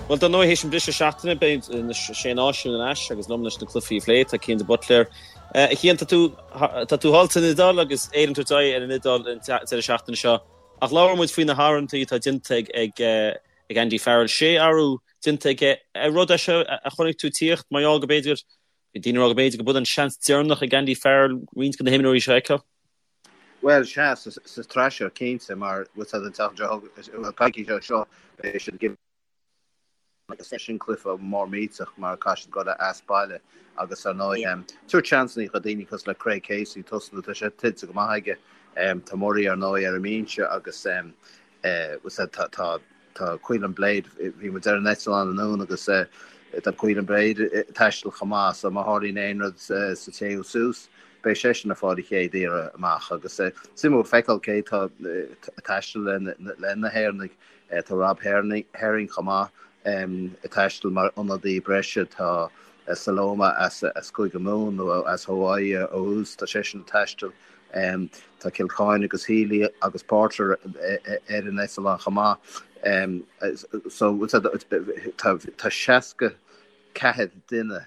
Bhuel, dar ndóigh, théis an briseadh seachtaine, beidh na Sé Náisiún ar ais agus liom leis na cluichí a phlé, tá Cian de Buitléar. A Chian, tá tú, tá tú thall san Iodáil agus Éire ag tabhairt aghaidh ar an Iodáil an deireadh seachtaine seo. Ach labhair muid faoi na hathruithe atá déanta ag, ag, ag Andy Farrell. Sé athrú déanta aige. Ar rud é seo a chonaic tú ag tíocht, mar gheall go b'fhéidir, bhí daoine ag rá go b'fhéidir go b'in an seans deireanach ag Andy Farrell roinnt de na himreoirí seo a fheiceáil? Bhuel, sea, sa tsraith seo, cinnte, mar bhfuil a fhios agat an tseachtain seo, bhuel, coicís ó seo, beidh siad ag agus sin cluiche mór millteach mar caithfidh siad dul as baile agus ar ndóigh, tabhairt seansanna do daoine cosúil le Craig Casey tosnú, tá sé tuillte go maith aige. Tá Murray ar ndóigh ar an mbinse agus bhfuil a fhios agat tá Tá Caolin Blade, bhí muid ar an eitleán anonn agus tá Caolin Blade ag taisteal chomh maith so má tharlaíonn aon rud sa téú suas, beidh seisean ag fáil a chéad iarraidh amach agus suimiúil feiceáil cé tá ag taisteal le na hÉireannaigh. Tá Rob Herring chomh maith ag taisteal mar ionadaí breise, tá Saloma as Cúige Mumhan nó as Hawaii ó thús, tá seisean ag taisteal. Tá Kilcoyne agus Healy agus Porter ar an eitleán chomh maith. So tá 64 duine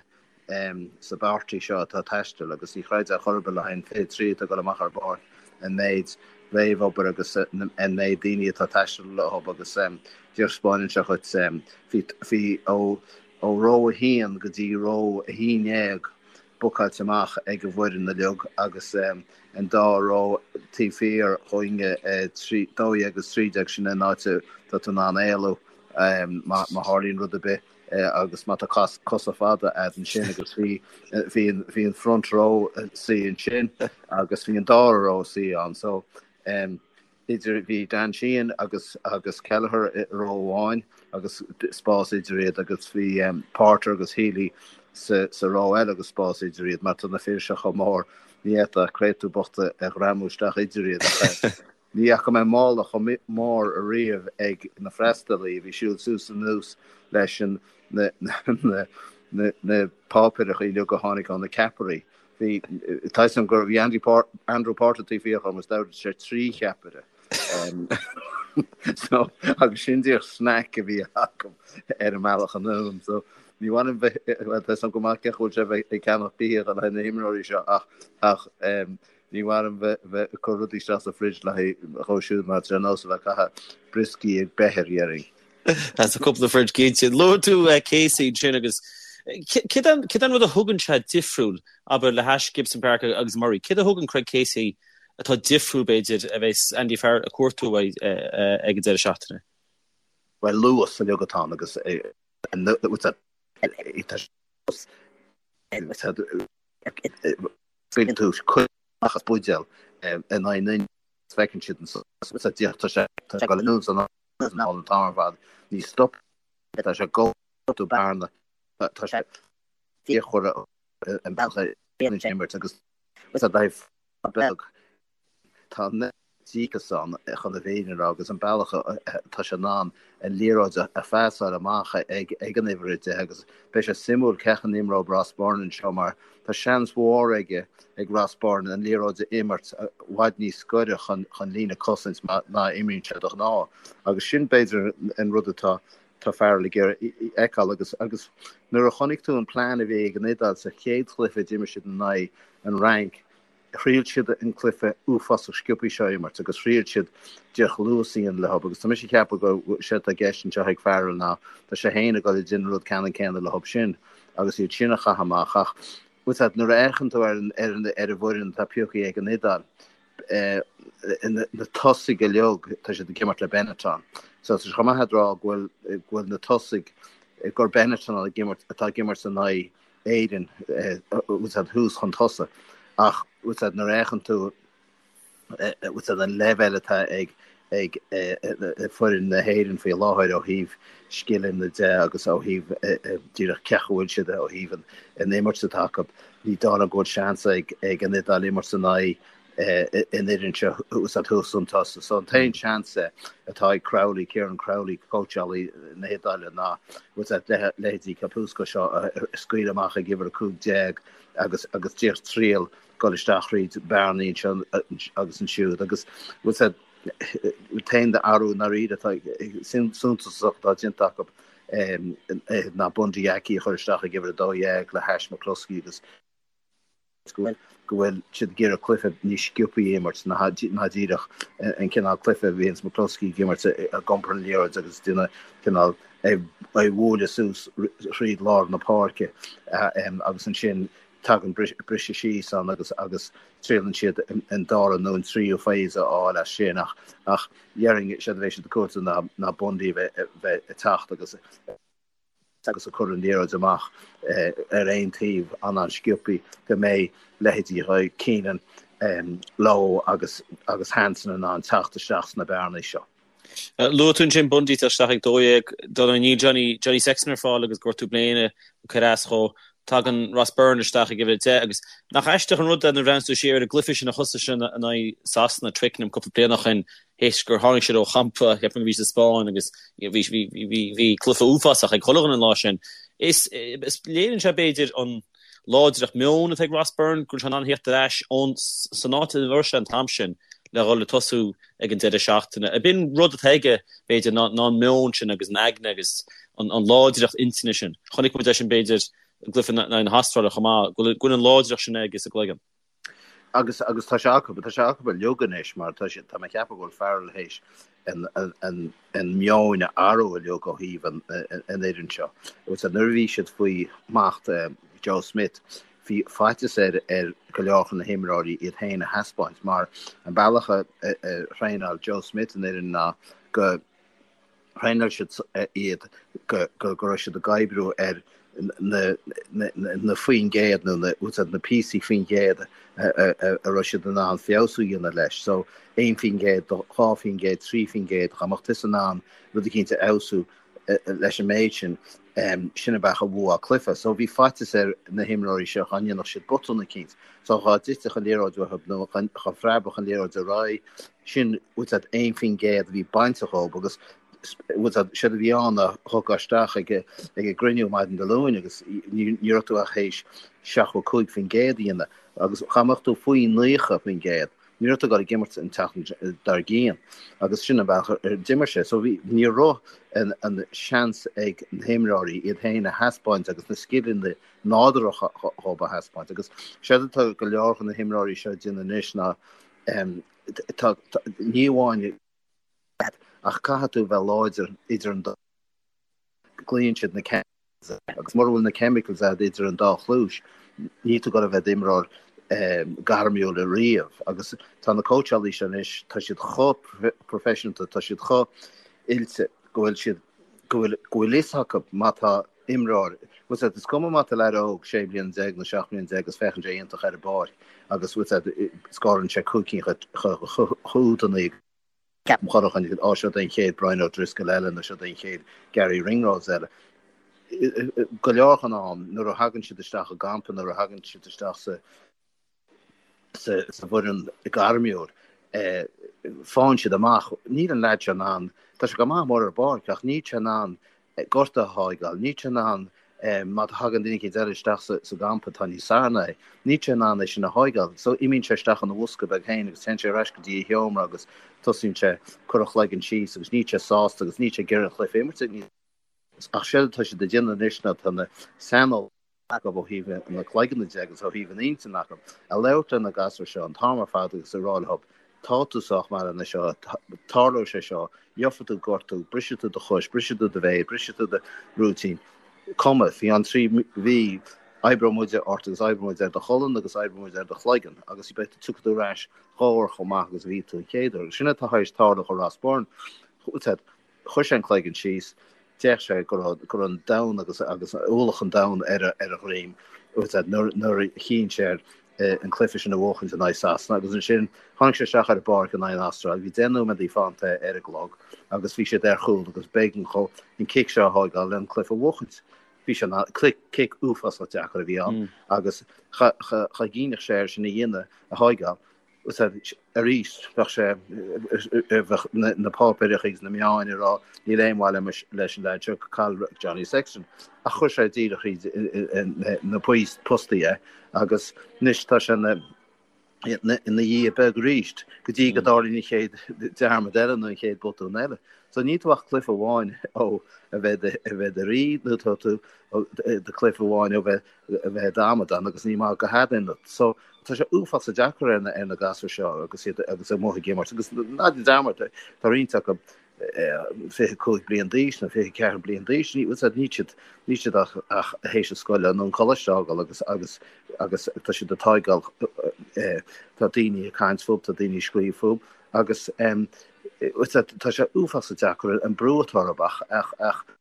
sa bpáirtí seo atá ag taisteal agus ní chreidfeá chor ar bith le haghaidh an 23 atá ag dul amach ar an bpáirc an méid réamhobair agus an méid daoine atá ag taisteal leo agus díreach spáineann sé dhuit bhí ó ró 1 go dtí ró 11 bookáilte amach ag an bhfoireann uilig agus an dá ró taobh thiar dhúinne, 12 agus 13, sin an áit atá tú in ann éalú má tharlaíonn rud ar bith agus má tá cosa fada a'd ansin agus bhí bhí an front row suí ansin agus bhí an dara ró suí ann so idir, bhí Dan Sheehan agus agus Kelleher i ró amháin agus spás idir iad agus bhí Porter agus Healy sa sa ró eile agus spás idir iad mar tá na fir seo chomh mór ní fhéadfá créatúr bocht a ghreamú isteach idir iad ach ní fhaca mé mála chomh mór ariamh ag na freastalaí a bhí siúl suas anuas leis an na na na na páipéireacha uilig a tháinig ó na ceapairí. Bhí, tá 'fhios a'm gur bhí Andy Andrew Porter taobh thiar dhom is d'ordaigh sé 3 cheapaire. So, agus sin díreach snack a bhí acu ar an mbealach anonn. So, ní mhaith liom bheith, bhuel, tá 'fhios a'm go maith cén chaoi a bhfuil sé bheith ag ceannach bia le haghaidh na himreoirí seo ach, ach ní mhaith liom bheith, bheith ag cur rudaí isteach sa fridge le haghaidh dhó siúd mar tá sé ar nós a bheith ag caitheamh brioscaí ag beithir, dhéarfainn. As a cúpla fridge cinnte. Luaigh tú Casey ansin agus céard é an rud a thugann sé difriúil, abair, le hais Gibson Park agus Murray? Céard a thugann Craig Casey atá difriúil, b'fhéidir, a bheas Andy Farrell ag cuartú uaidh ag an deireadh seachtaine? Bhuel, luas uilig atá ann agus scaoileann tú cuid amach as buidéal in aghaidh an duine feiceann siad an tá sé ag dul anuas an an t-am ar fad. Ní stop tá sé ag cruthú bearna tá sé fíochmhar an bealach a dhéanann sé imirt agus tá daimh beag tá an díocas ann chun an fhírinne a rá agus an bealach atá sé in ann an liathróid a phasáil amach ag ag an uimhir 10 agus beidh sé suimiúil cén chaoi a n-imreoidh Ross Byrne anseo mar Tá seans mhór aige ag Ross Byrne an liathróid a imirt i bhfad níos gaire chun líne cosaint ná a imríonn sé de ghnáth agus sin b'fhéidir an rud atá tá Farrell ag iarraidh a fheiceáil agus agus nuair a chonaic tú an plean a bhí ag an Iodáil sa chéad chluiche a d'imir siad in aghaidh an Fhrainc Thriail siad an cluiche uafásach sciobtha seo a imirt agus thriail siad díreach luas a dhéanamh leo agus tá mise ag ceapadh go sé atá i gceist anseo ag Farrell ná tá sé féin ag dul ag déanamh an rud ceannann céanna leo sin agus iad sin a chaitheamh amach ach bhfuil a fhios agat nuair a fhéachann tú ar an ar an ar an bhfoireann atá pioctha ag an Iodáil na tosaigh uilig tá siad ag imirt le Benetton so tá sé chomh maith a rá go bhfuil go bhfuil na tosaigh gur Benetton ag imirt atá ag imirt in aghaidh Éirinn, bhfuil a fhios agat thuas chun tosaigh. Ach bhfuil a fhios agat nuair a fhéachann tú bhfuil a fhios agat an leibhéal atá ag ag foireann na hÉireann faoi láthair ó thaobh scileanna de agus ó thaobh díreach cén chaoi a bhfuil siad ó thaobh an imirt atá acu, ní dóigh liom go bhfuil seans ag ag an Iodáil imirt in aghaidh an fhoireann seo thuas thuas chun tosaigh. So an t-aon seans atá ag Crowley, Kieran Crowley, cóitseálaí na hIodáile ná bhfuil a fhios agat leithéidí Capuozzo seo a scaoileadh amach ag uimhir 15 agus agus díreach triail dul isteach thríd bearnaí anseo agus ansiúd agus bhfuil a fhios agat an t-aon athrú i ndáiríre atá suntasach atá déanta acu. ná Bundee Aki a chur isteach ag uimhir 12 le hais McCloskey agus go bhfuil siad ag iarraidh cluiche níos sciobthaí a imirt ná díreach an cineál cluiche a bhíonns McCloskey ag imirt ag iompar an liathróid agus déanamh cineál é a bhualadh suas thríd lár na páirce agus ansin tagann briseadh síos ann agus agus triaileann siad an dara nó an tríú phase a fháil as sin ach ach déarfainn séard a bheidh siad ag cuartú ná ná Bundee a bheith ag teacht agus agus ag cur an liathróid amach ar aon taobh an-an-sciobthaí go mbeidh leithéidí Keenan, Lowe agus agus Hansen in ann teacht isteach sna bearnaí seo. Luaigh tú ansin Bundee ag teacht isteach ag 12, dar ndóigh níl Johnny Johnny Sexton ar fáil agus gortú bléine ag cur as dhó. Tagann Ross Byrne isteach ag uimhir 10 agus nach aisteach an rud é nuair a bhreathnaíonn tú siar ar an gcluiche sin a thosaigh sin in aghaidh Sasana, Twickenham cúpla bliain ó shin, théis gur tháinig siad ó champa, cheapfainn go bhí sa Spáinn agus bhí bhí bhí bhí cluiche uafásach ag chuile dhuine an lá sin. Is is léiríonn sé b'fhéidir an láidreacht meoin atá ag Ross Byrne go bhfuil sé in ann theacht ar ais ón san áit ina raibh sé an t-am sin le dhul ag tosú ag an deireadh seachtaine. Ab in rud atá aige b'fhéidir ná ná an meon sin agus an aigne agus an an láidreacht intinne sin. Chonaic muid é sin b'fhéidir i gcluiche in aghaidh na hAstráile chomh maith, go bhfuil go bhfuil an láidreacht sin aige sa gcloigeann. Agus agus tá sé acu, tá sé acu uilig anois mar tá sé, tá mé ag ceapadh go bhfuil Farrell théis an, an, an, an meon a athrú uilig ó thaobh an, an fhoireann seo. Agus nuair a bhí siad faoi smacht Joe Schmidt, bhí faitíos ar, ar go leor de na himreoirí iad féin a thaispeáint mar an bealach a, a, a thraenáil Joe Schmidt an fhoireann ná go, Thraenáil siad iad go raibh siad ag oibriú ar na faoin gcéad nó na píosaí faoin gcéad a raibh siad in ann feabhsú a dhéanamh leis. So 1%, 2%, 3%, dá mbeadh tusa in ann rud eicínt a fheabhsú leis an méid sin, sin an bealach a bhuafá cluiche. So bhí faitíos ar na himreoirí seo dá ndéanfadh siad botún eicínt. So dhá dtitfeadh an liathróid uathu nó dhá phreabfadh an liathróid ar aghaidh, sin bhfuil a fhios agat 1% a bhí bainte dhób agus bhfuil a fhios agat séard a bhí ann ná thiocfá isteach ag ag an gcruinniú maidin Dé Luain agus ní ní raibh tú ach théis 75% a dhéanamh agus dá mbeadh tú faoi 90% ní raibh tú ag dul ag imirt an tseachtain dár gcionn agus sin an bealach ar d'imir sé so bhí ní raibh an an seans ag na himreoirí iad féin a thaispeáint agus na scileanna nádúrtha dhób a thaispeáint agus séard atá go leor de na himreoirí seo ag déanamh anois ná tá, ní amháin ach caithfidh tú bheith láidir idir an dá, glaonn siad na chemicals agus mura bhfuil na chemicals agat idir an dá chluais, níl tú ag dul a bheith i d'imreoir gairmiúil riamh agus tá na cóitseálaí seo anois, tá siad chomh proifisiúnta, tá siad chomh oilte go bhfuil siad, go bhfuil, go bhfuil fhios acu má tá imreoir. Bhfuil a fhios agat, is cuma má tá leaid óg 16 bliana nó 17 mbliana agus féachann sé iontach ar an bpáirc agus bhfuil a fhios agat, scórann sé 5 cinn chúdannaí ceapaim chuile dhuine, á seo é an chéad Brian O'Driscoll eile nó seo é an chéad Garry Ringrose eile. Go leor den am nuair a thagann siad isteach i gcampa, nuair a thagann siad isteach sa sa bhfoireann gairmiúil, faigheann siad amach, níl an leaid seo in ann, tá sé go maith mór ar an bpáirc ach níl sé in ann gortú a thógáil, níl sé in ann má thagann duine éicint eile isteach sa gcampa atá níos fearr ná é, níl sé in ann é sin a thógáil. So imíonn sé isteach ina bhosca beag féin agus téann sé ar ais go dtí a sheomra agus tosaíonn sé cur a chloigeann síos agus níl sé sásta agus níl sé ag iarraidh an chluiche a imirt. Ach séard atá siad ag déanamh anois ná tá na saineolaithe acu ó thaobh na cloigeanna de agus ó thaobh an intinn acu, ag labhairt le na gasúir seo an t-am ar fad agus ag rá leo, tá tú sách maith lena seo, tarlóidh sé seo, gheobhaidh tú gortú, brisfidh tú do chois, brisfidh tú do mhéar, brisfidh tú do rúitín, cuma, faoi cheann 3 mhí, oibreoidh muide ort agus oibreoidh muid ar do cholainn agus oibreoidh muid ar do chloigeann agus beidh tú, tiocfaidh tú ar ais dhá uair chomh maith agus a bhí tú an chéad uair. Agus sin atá tar éis tarlú do Ross Byrne. Chuir sé an cloigeann síos, d'fhéach sé go raibh go raibh an domhan agus agus ualach an domhain ar a ar a dhroim nuair nuair a chinn sé ar an cluiche sin a bhuachaint in aghaidh Sasana agus ansin tháinig sé isteach ar an bpáirc in aghaidh an Astráil. Bhí 10 nóiméadaí fanta ar an gclog agus bhí siad ar chúl agus b'éigean dhó an cic seo a thógáil le an cluiche a bhuachaint. Bhí sé ina cic uafásach deacair a bhí ann agus cha cha cha gcuimhneodh sé air sin a dhéanamh a thógáil. Arís, bheadh sé, bheadh na páipéireacha agus na meáin ag rá níl aon mhaith leis an leaid seo, caill Johnny Sexton. Ach chuir sé díreach thríd na postaí é agus anois tá sé ina ina dhia beag arís go dtí go dtarlaíonn an chéad dearmad eile nó an chéad botún eile. So níl tú ach cluiche amháin ó a bheith a bheith i do rí nó tá tú do chluiche amháin ó bheith a bheith i d'amadán agus ní maith go headaon. So tá sé uafásach deacair ar na ar na gasúir seo agus iad agus amuigh ag imirt agus ná déan dearmad tá roinnt acu 25 bliain d'aois nó 24 bliain d'aois, ní níl siad níl siad ach ach théis an scoile nó an coláiste a fhágáil agus agus agus tá siad ag tógáil tá daoine ag caint fúthu, tá daoine ag scríobh fúthu agus tá sé uafásach deacair an brú atá orthu ach ach ach an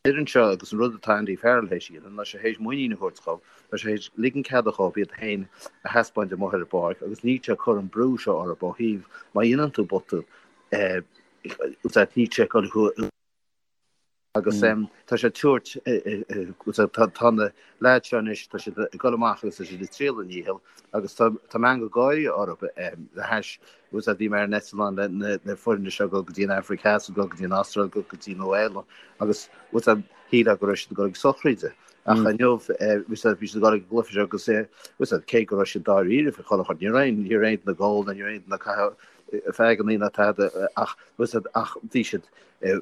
fhoireann seo agus an rud atá Andy Farrell théis a dhéanamh ná sé théis muinín a thabhairt dhóibh, tá sé théis ligean ceada dhóibh iad féin a thaispeáint amuigh ar an bpáirc agus níl sé ag cur an brú seo orthu ó thaobh má dhéanann tú botún níl sé ag dul thú agus tá sé ag tabhairt tá na leaids seo anois tá siad ag dul amach agus tá siad ag triail a ndícheall agus tá tá meangadh gáire orthu le hais Agus bhí mé ar an eitleán le na foirne seo ag dul go dtí an Afraic Theas, ag dul go dtí an Astráil, ag dul go dtí Nua Shéalainn agus bhfuil a fhios agat, shílfeá go raibh siad ag dul ag sochraide. Ach inniu bhí siad ag dul ag an gcluiche seo agus bhfuil a fhios agat, cé go raibh siad dáiríre faoi chuile shórt, ní raibh aon ní raibh aon duine ag ól ná ní raibh aon duine ag caitheamh feaigeanna ná tada ach bhfuil a fhios agat, ach bhí siad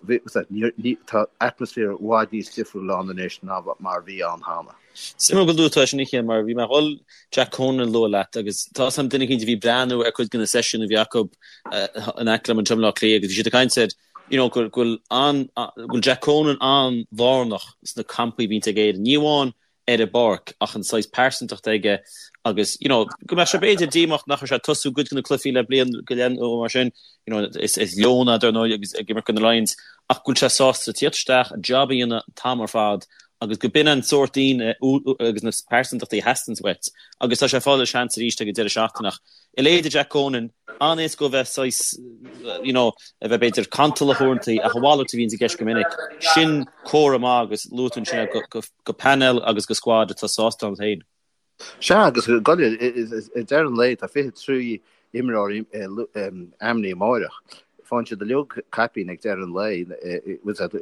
bhí a fhios agat, ní ní tá atmaisféar i bhfad níos difriúil ann anois ná mar a bhí ann cheana. Suimiúil go luaigh tú é sin a Chian mar bhí mé ag dul Jack Conan a lua leat agus tá 'fhios a'm duine eicínt a bhí ag breathnú ar cuid de na seisiúin a bhí acu in aice liom anseo i mBleá Cliath agus bhí siad ag caint ar you know go bhfuil an go bhfuil Jack Conan an-lárnach sna campaí a bhíonns ag Éirinn. Ní amháin ar an bpáirc ach an saghas pearsantacht aige agus you know go mbeadh sé b'fhéidir díomách nach raibh sé ag tosú cuid de na cluichí le bliain go leith nó mar sin you know is is Leon é dar ndóigh agus ag imirt do na Lions ach go bhfuil sé sásta tíocht isteach an job a dhéanamh an t-am ar fad agus go b'in an sórt daoine agus na pearsantachtaí a theastaíonns uait agus tá sé ag fáil a seans arís ag an deireadh seachtaine ach a leithéid de Jack Conan, an-éasca a bheith saghas you know a bheith b'fhéidir cantalach uaireanta ach a mhalairt a bhíonns i gceist go minic. Sin comhartha maith agus luaigh tú ansin é go painéal agus go squad atá sásta ann féin. Sea, agus ag deireadh an lae tá 23 imreoir ainmnithe amáireach. Faigheann siad uilig caipín ag deireadh an lae,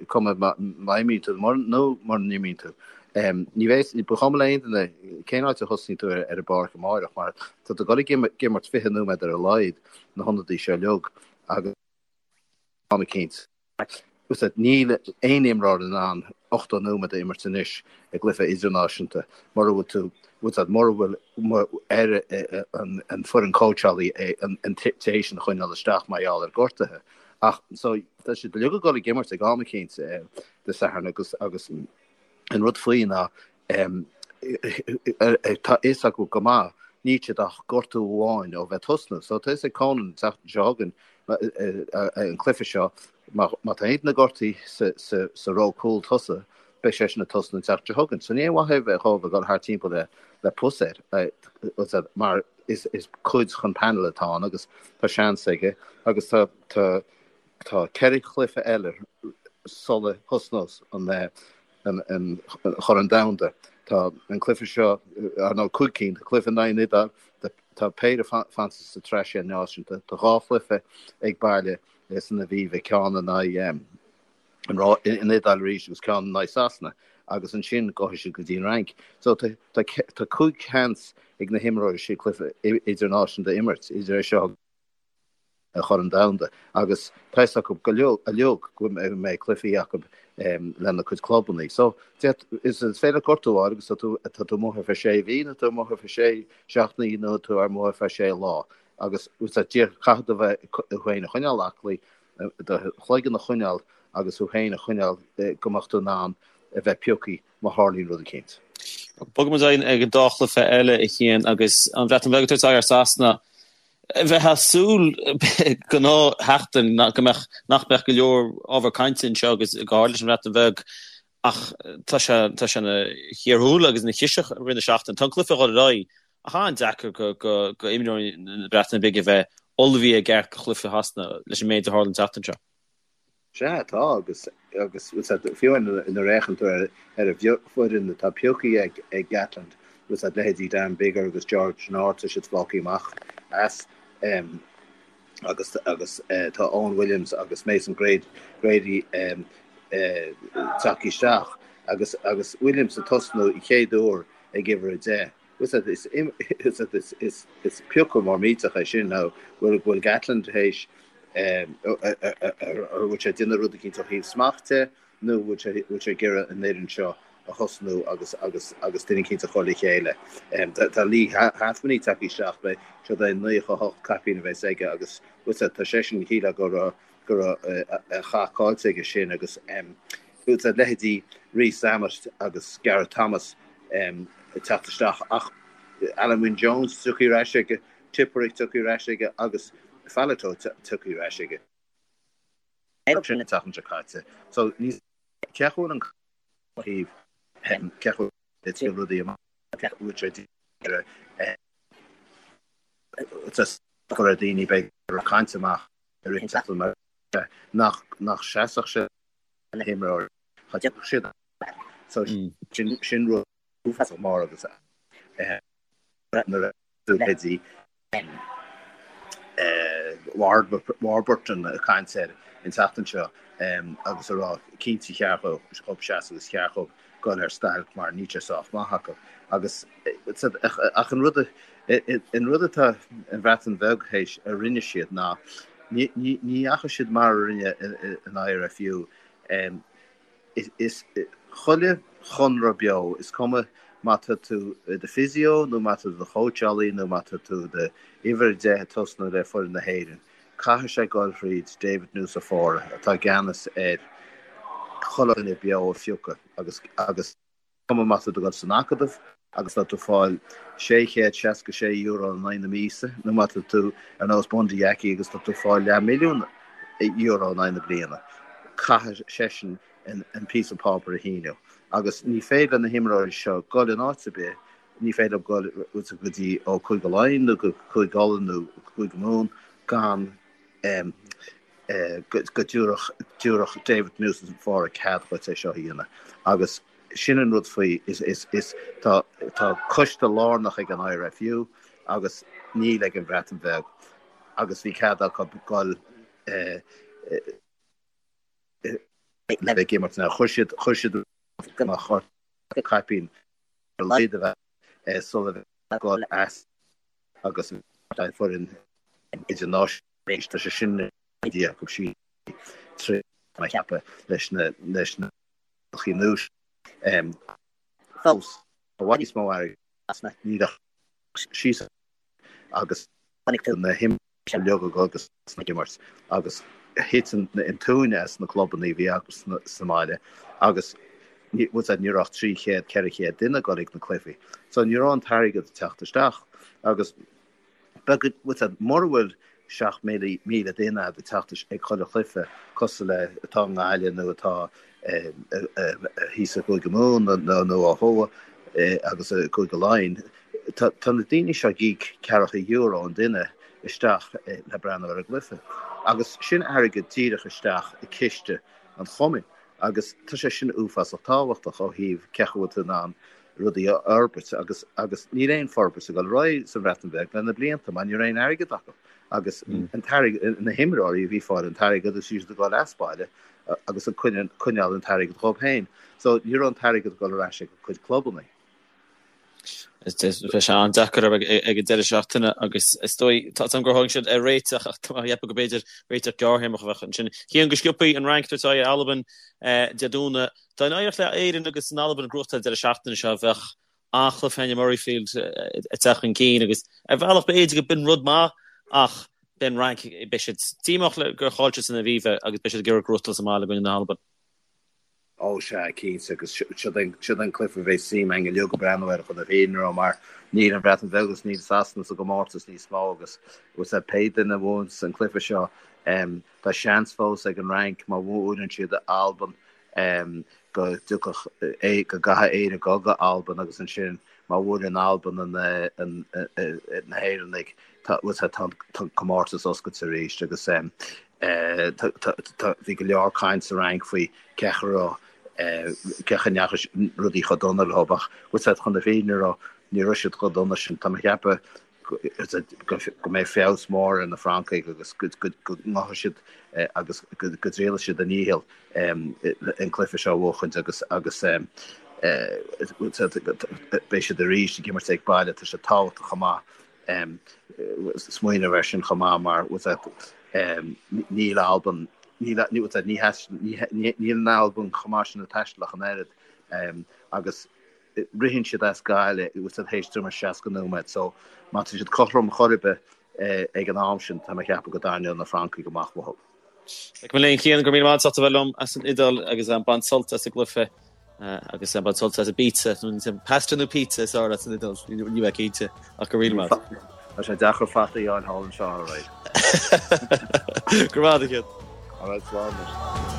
cuma má imríonn tú nó mura n-imríonn tú. Ní bheidh, ba chuma le aon duine cén áit a thosnaíonn tú ar an bpáirc amáireach mar tá tú ag dul ag imirt 20 nóiméad ar a laghad na hionadaí seo uilig agus am eicínt. Níl aon imreoir in ann 80 nóiméad a imirt anois i gcluiche idirnáisiúnta mura bhfuil tú, mura bhfuil ar an foireann cóitseálaí an té sin a choinneáil isteach mar gheall ar gortuithe. Ach so tá siad uilig ag dul ag imirt ag am eicínt Dé Sathairn agus agus an rud faoi ná tá a fhios acu go maith níl siad ach gortú amháin ó bheith tosnú. So tá a fhios ag Conan an tseachtain seo chugainn an cluiche seo má tá aon duine gortaithe sa ró cúl tosaigh beidh seisean ag tosnú an tseachtain seo chugainn. So ní aon mhaith é bheith dhóibh ag dul thart timpeall le pus air mar is cuid den panel atá ann agus tá seans aige agus tá tá tá 4 chluiche eile sula thosnós an an Chorn Domhanda. Tá an cluiche seo, ar ndóigh, 5 cinn, tá cluiche in aghaidh an Iodáil, tá péire fanta sa tsraith sé náisiún, tá 2 chluiche ag baile san Aviva, ceann in aghaidh an Iodáil arís agus ceann in aghaidh Sasana agus ansin gabhfaidh siad go dtí an Fhrainc. So tá 5 sheans ag na himreoirí sin cluiche idirnáisiúnta a imirt, idir é seo an Chorn Domhanda agus tá fhios acu go uilig go mbeidh cluichí acu lena cuid clubanna. So is féidir gortú a fháil agus tá tú tá tú amuigh ar feadh sé mhí nó tú amuigh ar feadh sé seachtainí nó tú amuigh ar feadh sé lá agus caithfidh tú bheith tú féin a choinneáil aclaí, do chloigeann a choinneáil agus tú féin a choinneáil go mbeadh tú in ann a bheith pioctha má tharlaíonn rud eicínt. Bogfaidh muid ag an dá chluiche eile a Chian agus an Bhreatain Bheag ag tabhairt aghaidh ar Sasana. Bheifeá ag súil gnáthsheachtain go mbeadh, nach mbeadh go leor ábhar cainte anseo agus go háirid leis an Bhreatain Bheag ach tá sé, tá sé ina chíor thuaille agus ina chiseach i rith na seachtaine. Tá an cluiche ag dul ar aghaidh ach an-deacair go, go, go imreoirí na Breataine Bige a bheith ullmhaithe i gceart do chluiche Shasana leis an méid a tharla an tseachtain seo. Sea, tá, agus, agus, fiú nuair a fhéachann tú ar ar an bhfoireann atá pioctha ag, ag Gatland, bhfuil a fhios agat, leithéidí Dan Biggar agus George North, tá siad fágtha amach as, agus, agus tá Owen Williams agus Mason Grady, Grady tagtha isteach, agus, agus Williams ag tosnú an chéad uair ag uimhir 10. Bhfuil a fhios agat, is, is, is, is piocadh mór millteach é sin, nó bhfuil, bhfuil Gatland théis. An bhfuil sé ag déanamh rud eicínt ó thaobh smacht de nó an bhfuil sé bhfuil sé ag iarraidh an fhoireann seo a thosnú agus agus agus duine eicínt a chur le chéile. Tá Leigh Halfpenny tagtha isteach, beidh siod é 98 caipín a bheas aige agus bhfuil sé tá seisean shílfeá go raibh go raibh a chath caillte aige sin agus bhfuil sé leithéidí Rees-Zammit agus Gareth Thomas ag teacht isteach ach Alun Wyn Jones tagtha ar ais aige Tipuric tagtha ar ais aige agus Faletau tagtha ar ais aige. Sin an tseachtain seo caite. So ní cé chomh bhfuil an thaobh cé chomh le triail rudaí amach bhfuil sé cur ar daoine beidh caint amach ar an tseachtain mar nach nach seasfadh sé na himreoirí cha dtiocfadh siad so sin sin rud uafásach mór agus nuair a leithéidí Warburton ag caint air an tseachtain seo agus a rá cinnte cheart dhób seasamh agus cheart dhób dul ar stailc mar níl sé sách maith acu. Agus ach an rud an rud atá an Bhreatain Bheag théis a rinne siad ná ní dheachaigh siad mar a rinne an IRFU. Is chuile chonradh beo, is cuma má tá tú i do physio nó má tá tú i do chóitseálaí nó má tá tú i do uimhir 10 ag tosnú le foireann na hÉireann, caithfidh sé dul thríd David Nucifora atá i gceannas ar chuile dhuine beo a phiocadh agus agus cuma má tá tú ag dul san acadamh agus tá tú ag fáil €666 in aghaidh na míosa nó má tá tú ar nós Bundee Aki agus tá tú ag fáil leathmhilliún euro in aghaidh na bliana, caithfidh seisean an píosa páipéir a shíniú. Agus ní féidir le na himreoirí seo dul in áit ar bith, ní féidir leo dul go dtí ó Cúige Laighean nó go Cúige Uladh nó Cúige Mumhan gan go dtabharfadh David Nucifora cead dhuit é seo a dhéanamh. Agus sin an rud faoi, is, is, is, tá, tá coiste lárnach ag an IRFU agus níl ag an Bhreatain Bheag agus bhí cead acu dul le bheith ag imirt. Now chuir siad, chuir siad amach caipín ar a laghad a bheith sula bheith ag dul as agus foireann idirnáisiúnta. Tá sé sin i ndiaidh acu siúd trí a cheapadh leis na leis na rialacha nua fós i bhfad níos mó airgid níl ach síos agus na himreoirí uilig agus ag imirt agus thit an tóin as na clubanna a bhí acu sa mbaile agus ní raibh ach 300, 400 duine ag dul ag na cluichí. So ní raibh an t-airgead ag teacht isteach agus Beidh, mura bhfuil 7,000 duine ag teacht ag chuile chluiche cosúil le atá i nGaillimh nó atá thíos i gCúige Mumhan nó ó thuaidh agus i gCúige Laighean, tá na daoine seo ag íoc ceathracha euro an duine isteach le breathnú ar an gcluiche. Agus sin airgead díreach isteach i ciste an chumainn agus tá sé sin uafásach tábhachtach ó thaobh cé chaoi a bhfuil tú in ann rudaí a fhorbairt agus agus níl aon forbairt ag dul ar aghaidh sa Bhreatain Bheag le na blianta mar ní raibh aon airgead acu agus an t-airgead, na himreoirí a bhí ag fáil an t-airgead agus siad ag dul as baile agus ag coinneáil an t-airgead dhóibh féin. So ní raibh an t-airgead ag dul ar ais ag a gcuid clubanna. Bheidh sé an-deacair ag an deireadh seachtaine agus is dóigh, tá a fhios agam gur tháinig siad ar réiteach ach tá mé ag ceapadh go b'fhéidir réiteach gearrthéarmach a bheadh ansin. Cian go sciobthaí an Fhrainc ag tabhairt aghaidh ar Albain Dé Domhnaigh. Dá n-éireodh le Éirinn agus an Albain gnóthachtáil an deireadh seachtaine seo, bheadh an-chluiche in Murrayfield ag teacht chun cinn agus ar bhealach b'fhéidir go b'in rud maith ach beidh an Fhrainc, beidh siad díomách le gur chaill siad san Aviva agus beidh siad ag iarraidh gnóthachtáil sa mbaile i gcoinne na hAlban. Ó sea, cinnte, agus siod an cluiche a bheidh suim againn uilig ag breathnú air chun na fírinne a rá mar níl an Bhreatain Bheag agus níl Sasana sa gcomórtas níos mó agus pé duine a bhuanns an cluiche seo, Tá seans fós ag an Fhrainc má bhuaileann siad Albain go dtiocfadh go gcaithfidh Éire dul go Albain agus ansin má bhuaileann Albain na hÉireannaigh tá an comórtas oscailte arís agus bhí go leor caint sa Fhrainc faoi cé chaoi a raibh cé chaoi a ndeachaigh rudaí chomh dona leo ach chun na fírinne a rá ní raibh siad chomh dona sin. Tá mé ag ceapadh go mbeidh feabhas mór ar na Francaigh agus go ngabhfaidh siad agus go dtriailfidh siad a ndícheall an cluiche seo a bhuachaint agus agus beidh siad arís ag imirt ag baile. Tá sé tábhachtach chomh maith smaoineamh air sin chomh maith mar. Níl Albain, níl, níl an Albain chomh maith sin ag taisteal ach an oiread agus ritheann siad as gaile bhfuil a fhios agat théis tuairim is 60 nóiméad so má tá siad cothrom chor ar bith ag an am sin tá mé ag ceapadh go dtarraingeoidh na Francaigh amach uathu. Mo léan a Chian, go raibh míle maith agat as ucht a bheith liom as an Iodáil agus bain sult as an gcluiche agus bain sult as an bpizza, nó pasta nó pizza is fearr leat san Iodáil, níl mé cinnte ach go raibh míle maith agat. Tá sé deacair fataí a fháil thall anseo, alright. Go raibh maith agat a Chian. Alright, slán anois.